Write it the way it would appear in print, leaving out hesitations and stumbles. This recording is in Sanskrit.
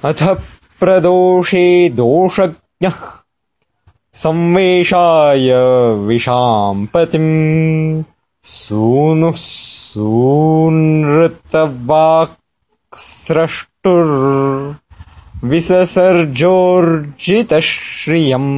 अथ प्रदोषे दोषज्ञः संवेशाय विशाम्पतिम् सूनुः सूनृतवाक्स्रष्टुर् विससर्जोर्जितश्रियम्।